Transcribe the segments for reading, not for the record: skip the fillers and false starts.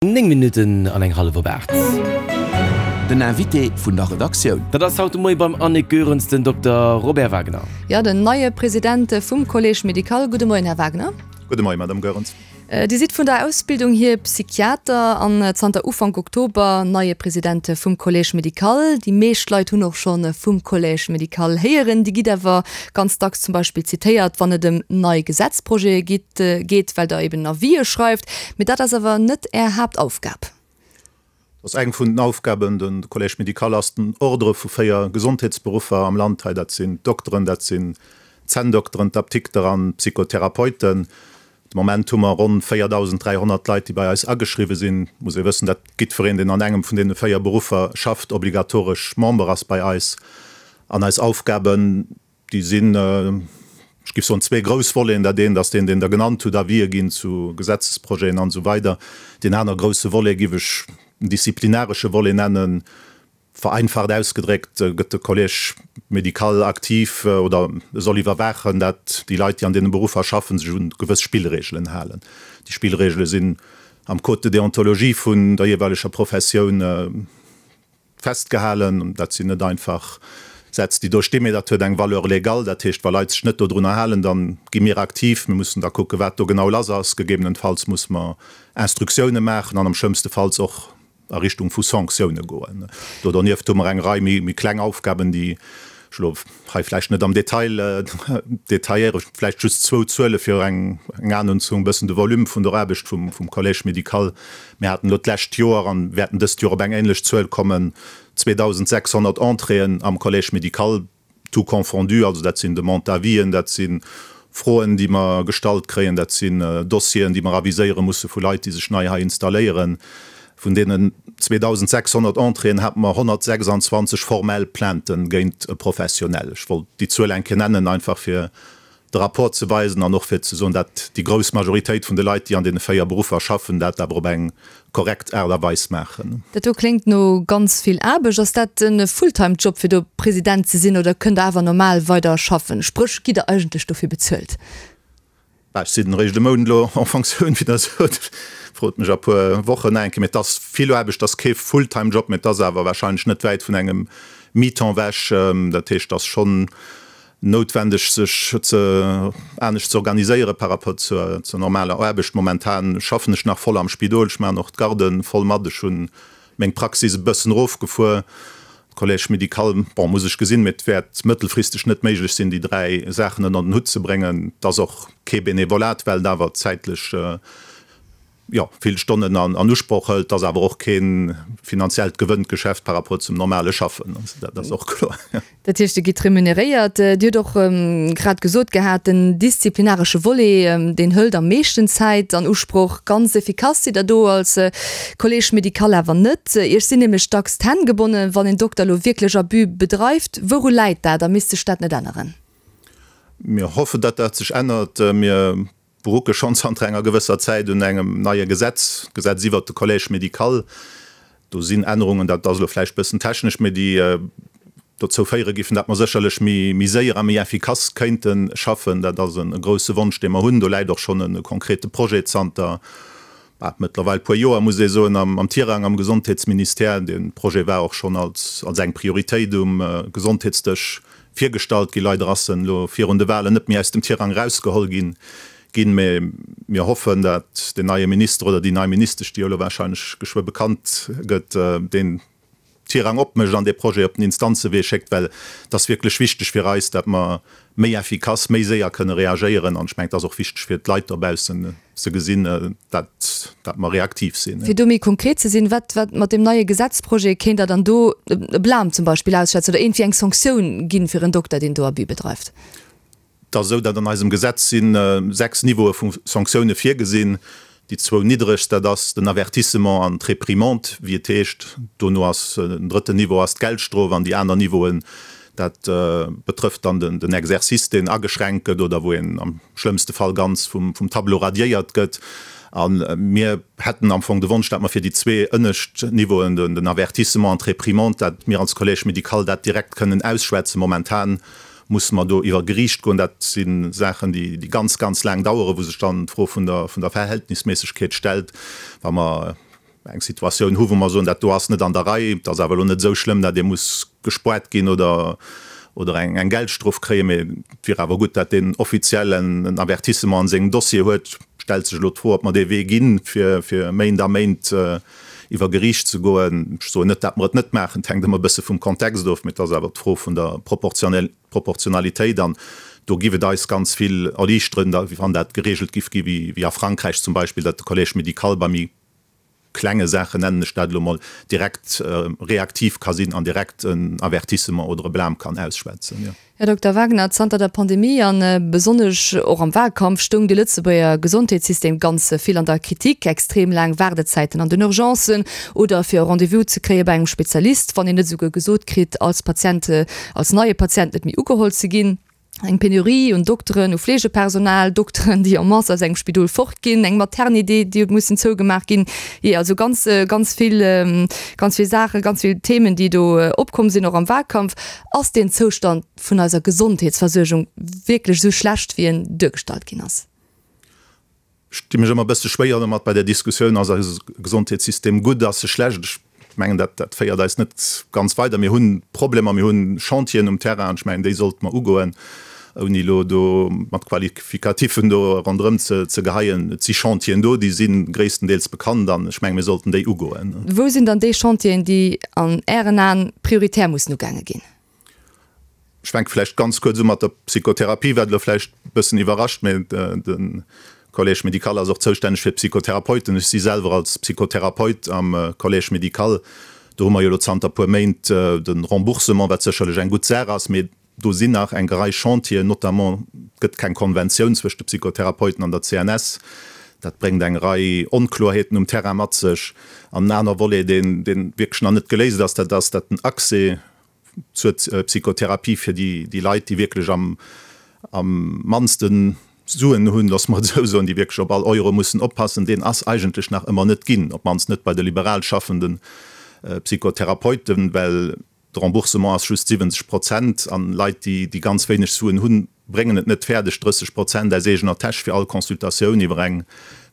9 Minutten an eng hallef op 8. Den Invité vun der Redaktioun. Dat ass haut de Moie beim Annick Goerens den Dokter Robert Wagner. Jo, den neie President vum Collège médical. Gudde Moien, Här Wagner. Gudde Moien, Madame Goerens. Dir sidd vun der Ausbildung hier Psychiater an zanter Ufank Oktober neie President vum Collège médical. Déi meescht Leit hunn och scho vum Collège médical héieren. Dir gitt awer ganz dacks zum Beispill zitéiert, wann et ëm nei Gesetzprojete gitt, geet, well Der eben Avisë schreift. Mee dat ass awer net Är Haaptaufgab. Dat ass eng vun den Aufgaben. De Collège médical ass den Ordre vu 4 Gesondheetsberuffer am Land hei. Dat sinn d'Dokteren, dat sinn d'Zänndokteren, d'Aptikter an d'Psychotherapeuten. De Moment hu mer ronn 4.300 Leit, déi bei eis ageschriwwe sinn. Et muss ee wëssen, datt jiddwereen, deen an engem vun deene 4 Beruffer schafft, obligatoresch Member ass bei eis. An eis Aufgaben, Déi sinn, ech géif soen, zwee grouss Voleten. Dat eent ass deen, deen Der genannt hutt, Avisë ginn zu Gesetzesprojeten an esou weider. Deen aner grousse Volet géif ech den disziplinaresche Volet nennen. Vereinfacht ausgedréckt gëtt de Collège médical aktiv oder e soll iwwerwaachen, dat déi Leit, déi an deene Beruffer schaffen, sech un gewëss Spillregelen halen. Déi Spillregele sinn am Code de déontologie vun der jeeweileger Professioun Festgehalen. Dat sinn net einfach Sätz, déi do stinn, mee dat huet eng Valeur légale. Dat heescht, wa Leit sech net dodrunner halen, da gi mir aktiv. Mir mussen da kucken, wat do genau lass ass. Gegebenenfalls musse mer Instruktioune maachen an am schlëmmste Falls och a Richtung vu Sanktioune goen. Do donieft hu mer eng Rei méi kleng Aufgaben, déi ech elo hei vläicht net am Detail detailléieren. Vläicht just zwou Zuele fir eng Anung ze hunn, e bëssen de Volume vun der Aarbecht vum Collège médical. Mir haten elo d'lescht Joer an wäerten dëst Joer op eng ähnlech Zuel kommen, 2.600 Entréeën am Collège médical, tout confondu. Also dat sinn Demande d'avis'en, dat si Froen, déi mer gestallt kréien, dat sinn Dossieren, déi mer aviséiere musse vu Leit, déi sech nei hei installéieren. Vun deenen 2.600 Entréeën hate mer 126 formell Plaintë géint e Professionell. Ech wollt déi Zuel eng Kéier nennen, einfach fir de Rapport ze weisen an och fir ze soen, dat déi grouss Majoritéit vun de Leit, déi an deene 4 Beruffer schaffen, dat awer op eng korrekt Aart a Weis maachen. Dat do kléngt no ganz vill Aarbecht. Ass dat e Fulltime-Job fir do President ze sinn oder kënnt Der awer normal weider schaffen? Spréch, gitt Der eigentlech dofir bezuelt? Bah, ech sinn eréischt e Mount elo en Fonctioun, wéi Der sot. Frot mech a puer Wochen nach eng Kéier. Mee et ass vill Aarbecht, et ass kee Fulltime-Job, mee et ass awer warscheinlech net wäit vun engem Mi-temps ewech. Dat heescht, et ass schonn noutwendeg sech ze anescht ze organiséiere par rapport zur zur normaler Aarbecht. Momentan schaffen ech nach voll am Spidol, ech maachen och d'Garde voll mat, ech hu meng Praxis e bëssen erofgefuer. Collège médical, bon, muss ech gesinn, mee et wäert mëttelfristeg net méiglech sinn, déi 3 Saachen ënner den Hutt ze bréngen. Et ass och kee Benevolat, well et awer zäitlech jo, vill Stonnen an Usproch hëlt, ass awer och kee finanziellt Gewënngeschäft par rapport zum normale Schaffen, dat ass och kloer. Dat heescht, Dir gitt remuneréiert. Dir hutt och grad gesot gehat, den disziplinaresche Volet, deen hëlt am meeschten Zäit an Usproch. Ganz effikass sidd Der do als Collège médical awer net. Iech sinn nämlech dacks d'Hänn gebonnen, wann een Dokter elo wierklech Abus bedreift. Wouru läit dat a misst sech dat net änneren? Mir hoffen, datt dat sech ännert. Mir berucke schonn zanter enger gewësser Zäit un engem neie Gesetz, d'Gesetz iwwert de Collège médical. Do sinn Ännerungen, dat ass elo vläicht e bëssen technesch, mee déi dozou féiere giffen, datt mer sécherlech méi séier a méi effikass kéinte schaffen. Dat ass e grouse Wonsch, dee mer hunn. Do läit och schonn e konkrete Projet zanter mëttlerweil puer Joer, muss ee soen, am Tirang am Gesondheetsministère. Dee Projet war och schonn als eng Prioritéit um Gesondheetsdësch virgestallt ginn. Leider ass en elo virun de Wahlen net méi aus dem Tirang erausgeholl ginn, mä mir hoffen, dat den neie Minister oder déi nei Ministesch, déi jo elo wahrscheinlech geschwë bekannt gëtt, deen Tirang opmécht an dee Projet op den Instanzewee schéckt, well et ass wierklech wichteg fir eis, dat mer méi effikass, méi séier kënne reagéieren. An ech mengen, et ass och wichteg fir d'Leit dobaussen ze gesinn, dat dat mer reaktiv sinn. Fir do méi konkret ze sinn, wat wat mat deem neie Gesetzprojet kéint Der dann do e Blâme zum Beispill ausschwätzen oder iergendwéi eng Sanktioun ginn fir en Dokter, deen do Abus bedreift? Et ass esou, datt an eisem Gesetz si 6 Niveaue vu Sanktioune virgesinn. Déi zwou niddregst, dat ass den Avertissement an d'Réprimande, wéi et heescht. Dono ass den drëtten Niveau ass d'Geldstrof an déi aner Niveauen, dat betrëfft dann den Exercice, deen ageschränkt gëtt oder wou een am schlëmmste Fall ganz vum Tableau radiéiert gëtt. A mir hätten am Fong de Wonsch, datt mer fir déi zwee ënnescht Niveauen, den Avertissement an d'Réprimande, datt mir als Collège médical dat direkt kënnen ausschwätzen. Momentan musse mer do iwwer Geriicht goen. Dat si Saachen, déi ganz, ganz laang daueren, wou sech dann d'Fro vun der Verhältnisméissegkeet stellt, wa mer. eng Situatioun hu wou mer soen, dat do ass net an der Rei, et ass awer elo net esou schlëmm, dat ee muss gespoart ginn oder oder eng eng Geldstrof kréien, mee et wier awer gutt, dat deen offiziell en en Avertissement an sengem Dossier huet. Stellt sech elo d'Fro, ob mer dee Wee ginn, fir fir Méint a Méint iwwer Geriicht ze goen. Ech soen net, dat mer et net maachen, et hänkt ëmmer e bësse vum Kontext of, mee et ass awer d'Fro vun der Proportionalitéit an do giff et eis ganz vill erliichteren, wann dat geregelt giff gi wéi a Frankräich zum Beispill, datt de Collège médical bei méi klenge Saachen, nennen ech dat elo mol, direkt reaktiv ka sinn an direkt en Avertissement oder e Blâme kann ausschwätzen. Här Dokter Wagner, zanter der Pandemie a besonnesch och am Wahlkampf stoung de Lëtzebuerger Gesondheetssystem ganz vill an der Kritik. Extrem laang Waardezäiten an den Urgencen oder fir e Rendez-vous ze kréie bei engem Spezialist, wann een net esouguer gesot kritt, als Patient, als neie Patient net méi ugeholl ze ginn. Eng Penurie un Dokteren, u Fleegepersonal, Dokteren, déi en masse aus engem Spidol fortginn, eng Maternité, déi huet mussen zougemaach ginn. Jee, also ganz, ganz vill, ganz vill Saachen, ganz vill Themen, déi do opkomm sinn, och am Wahlkampf. Ass deen Zoustand vun eiser Gesondheetsversuergung wierklech esou schlecht, wéi en duergestallt ginn ass? Ech di mech ëmmer e bësse schwéier domat bei där Diskussioun, ass eise Gesondheetssystem gutt, ass e schlecht? Ech mengen, dat, dat féiert eis net ganz weider. Mir hu Problemer, mir hu Chantieren um Terrain an ech mengen, déi sollte mer ugoen, ouni elo do mat Qualifikatiffen do ronderëm ze, ze geheien. Et si Chantieren do, déi si gréisstendeels bekannt an ech mengen, mir sollten déi ugoen. Wou sinn dann déi Chantieren, déi an Ären Aen prioritär mussen ugaange ginn? Ech fänke vläicht ganz kuerz u mat der Psychotherapie, wat elo vläicht e bëssen iwwerrascht, mä de Collège médical ass och zoustänneg fir d'Psychotherapeuten. Ech si selwer als Psychotherapeut am Collège médical. Do hu mer jo elo zanter e puer Méint de Remboursement, wat sécherlech eng gutt Saach ass, mä do sinn nach eng Rei Chantieren, notamment et gëtt keng Konventioun zwëscht de Psychotherapeuten an der CNS. Dat bréngt eng Rei Onkloerheeten um Terrain mat sech. An en aner Volet, deen wierklech nach net geléist ass, dat ass, datt den Accès zur Psychotherapie fir déi Leit, déi wierklech am mannste Suen hunn, loosse mer et esou soen, déi wierklech op all Euro mussen oppassen, deen ass eigentlech nach ëmmer net ginn, op d'mannst net bei de liberal schaffende Psychotherapeuten, well de Remboursement ass just 70 Prozent an Leit, déi ganz wéineg Suen hunn, bréngen et net fäerdeg, 30 Prozent aus eegener Täsch fir all Consultatioun iwwer eng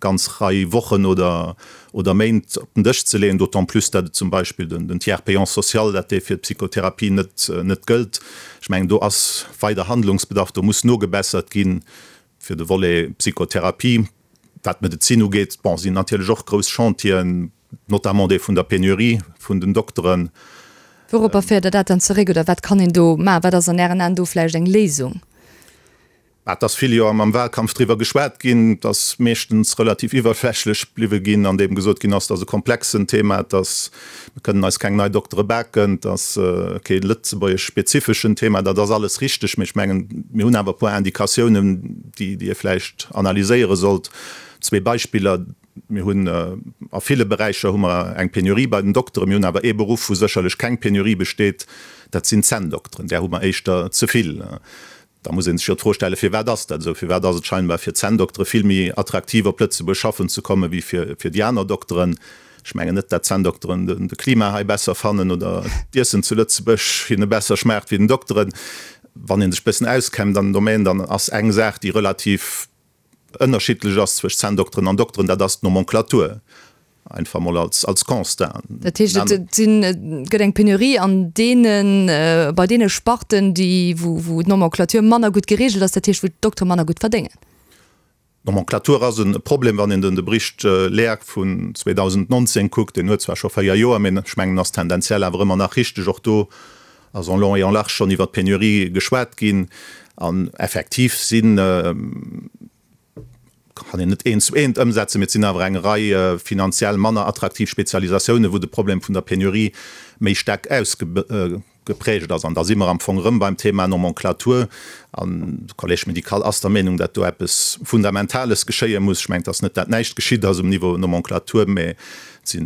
ganz Rei Wochen oder oder Méint op den Dësch ze leeën, d'autant plus dat et zum Beispill den Tiers payant social, dat dee fir d'Psychotherapie net net gëllt. Ech mengen, do ass weider Handlungsbedarf, do muss nogebessert gi fir de Volet Psychotherapie. Wat d'Medezin ugeet, bon, sinn natierlech och grouss Chantieren, notamment dee vun der Penurie vun den Dokteren. Wouropper féiert Der dat dann zeréck oder wat kann een do maachen? Wat ass an Ären Aen do vläicht eng Léisung? Et ass vill jo am Wahlkampf driwwer geschwat ginn. Et ass meeschtens relativ iwwerflächlech bliwwe ginn, an deem gesot ginn ass, et ass e komplexen Thema, et ass, mir kënnen eis keng nei Doktere baken, et ass kee lëtzebuergesch-spezifeschen Thema. Dat ass alles richteg, mee ech mengen, mir hunn awer e puer Indikatiounen, déi ee vläicht analyséiere sollt. Zwee Beispiller. Mir hunn a ville Beräicher hu mer eng Penurie bei den Dokteren. Mir hunn awer ee Beruff, wou sécherlech keng Penurie besteet, dat sinn d'Zänndokteren. Där hu mer éischter ze vill. Da muss ee sech jo d'Fro stellen, Firwat ass dat esou? Firwat ass et scheinbar fir d'Zänndoktere vill méi attraktiv, op Lëtzebuerg schaffen ze kommen, wéi fir déi aner Dokteren? Ech mengen net, dat d'Zänndokteren de Klima hei besser fannen oder d'Iessen zu Lëtzebuerg hinne besser schmaacht wéi den Dokteren. Wann ee sech e bëssen auskennt an dem Domaine, dann ass eng Saach, déi relativ ënnerschiddlech ass zwëscht Zänndokteren an Dokteren, dat ass d'Nomenclature, einfach mol als als Constat. Dat heescht, et sinn, et gëtt eng Penurie an deenen, bei deene Sparten, déi, wou, wou d'Nomenclature manner gutt geregelt ass, dat heescht, wou d'Doktere manner gutt verdéngen. D'Nomenclature ass e Problem, wann een den de Bericht Leag vun 2019 kuckt, deen huet zwar scho 4 Joer, mee ech mengen, ass tendenziell awer ëmmer nach richteg. Och do ass en long et en large schonn iwwer d'Penurie geschwat ginn an effektiv sinn, kann een net eent zu eent ëmsetzen, mee et sinn awer eng Rei finanziell manner attraktiv Spezialisatiounen, wou de Problem vun der Penurie méi staark ausgeprägt ass. An da si mer am Fong erëm beim Thema Nomenclature. An de Collège médical ass der Meenung, datt do eppes Fundamentales geschéie muss. Ech mengen, et ass net, dat näischt geschitt ass um Niveau Nomenclature, mä Et si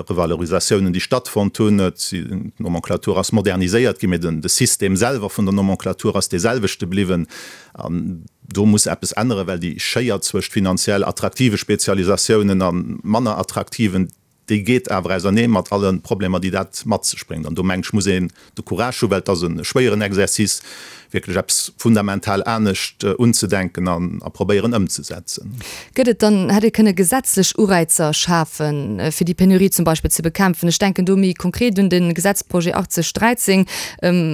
Revalorisatiounen, déi stattfonnt hunn. D'Nomenclature ass moderniséiert ginn, mee de System selwer vun der Nomenclature ass dee selwechte bliwwen. An do muss eppes änneren, well déi Schéier zwëscht finanziell attraktive Spezialisatiounen a manner attraktiven. Déi geet awer ausernee mat alle Problemer, déi dat mat sech bréngt. An do, mengen ech, muss een de Courage hu, well et ass e schwéieren Exercice, wierklech eppes fundamental anescht unzedenken an a probéieren ëmzesetzen. Gëtt et dann, hätt ee kënne gesetzlech Ureizer schafen, fir déi Penurie zum Beispill ze bekämpfen? Ech denken do méi konkret un de Gesetzprojet 8013,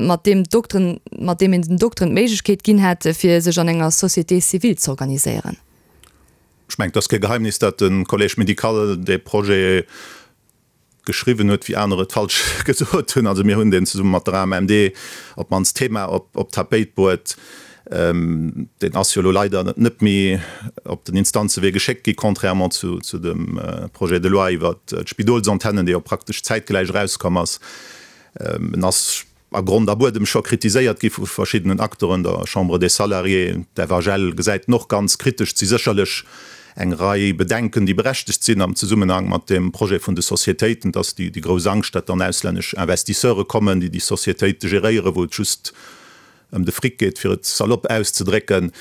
mat deem d'Dokteren, mat deem een den Dokteren d'Méiglechkeet ginn hätt, fir sech an enger Société civile z'organiséieren. Ech mengen, et ass kee Geheimnis, datt de Collège médical dee Projet geschriwwen huet, wéi aner et falsch gesot hunn. Also mir hunn deen zesumme mat der AMMD op d'mannst d'Thema op d'Tapéit bruet. Deen ass jo elo leider net méi op den Instanzewee geschéckt gi, contrairement zu dem Projet de loi iwwert d'Spidolsantennen, dee jo praktesch zäitgläich erauskomm ass. En ass a Grond a Buedem scho kritiséiert gi vu verschiddenen Acteuren, der Chambre des Salariés, d'FHL gesäit en och ganz kritesch. Et si sécherlech eng Rei Bedenken, déi berechtegt sinn am Zesummenhang mat deem Projet vun de Sociétéiten. Et ass déi grouss Angscht, datt dann auslännesch Investisseure kommen, déi déi Sociétéite geréieren, wou et just ëm de Fric geet, fir et salopp auszedrécken.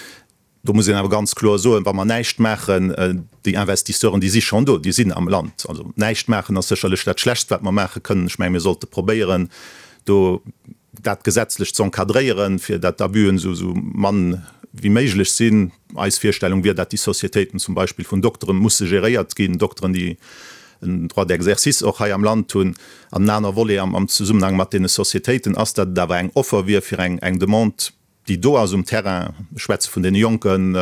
Do muss een awer ganz kloer soen, wa mer näischt maachen, déi Investisseuren, déi si schonn do, déi sinn am Land. Also näischt maachen ass sécherlech dat Schlechtst, wat mer maache kënnen. Ech menge mir sollte probéieren, do dat gesetzlech ze encadréieren, fir dat d'Abüen esou mann wéi méiglech sinn. Eis Virstellung wier, dat déi Sociétéiten zum Beispill vun Doktere musse geréiert ginn, Dokteren, déi en Droit d'exercice och hei am Land hunn. An en aner Volet am Zesummenhang mat deene Sociétéiten ass, dat et awer eng Offer wier fir eng Demande, déi do ass um Terrain, ech schwätze vun deene Jonken,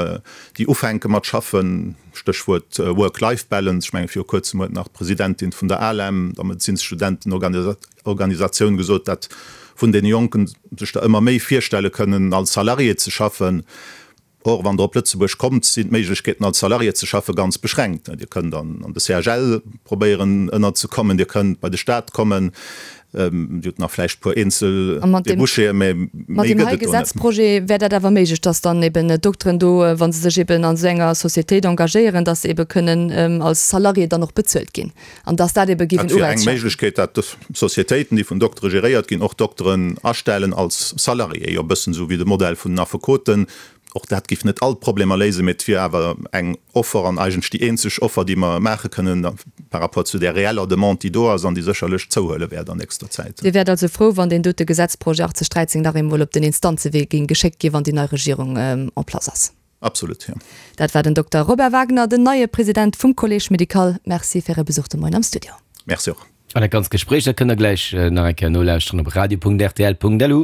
déi ufänke mat schaffen, Stéchwuert Work-Life-Balance, ech menge viru kuerzem huet nach d'Presidentin vun der ALEM, der Medezinsstudentenorganisatioun, gesot, dat vun deene Jonken sech der ëmmer méi virstelle kënnen, als Salarié ze schaffen. Or, wann Der op Lëtzebuerg kommt, sinn d'Méiglechkeeten, als Salarié ze schaffe ganz beschränkt. Dir kënnt an de CHL probéieren ënnerzekommen, Dir kënnt bei de Staat kommen, Dir hutt nach vläicht e puer eenzel Débouchéen, mä méi gëtt et do net. Mat deem hei Gesetzprojet wär dat awer méiglech, dass dann eben d'Dokteren do, wa se sech eben an esou enger Sociétéit engagéieren, dass se ebe kënnen als Salarié dann och bezuelt ginn an dass dat ebe géif en Dat wier eng Ureiz schafen. Méiglechkeet, dat Sociétéiten, déi vun Doktere geréiert ginn, och Dokteren astellen als Salarié, jo e bëssen esou wéi de Modell vun den Affekoten. Och dat géif net all d'Problemer léisen, mee et wier awer eng Offer an eigentlech déi eenzeg Offer, déi mer maache kënnen par rapport zu där reeller Demande, déi do ass an déi sécherlech zouhuele wäert an nächster Zäit. Dir wäert also frou, wann deen dote Gesetzprojet 8013 nach eemol op den Instanzewee géing geschéckt ginn, wann déi nei Regierung en place ass. Absolut, jo. Dat war den Dokter Robert Wagner, den neie President vum Collège médical. Merci fir Äre Besuch de Moien am Studio. Merci och. An dat ganzt Gespréich, dat kënnt der gläich nach eng Kéier nolauschteren op radio.rtl.lu.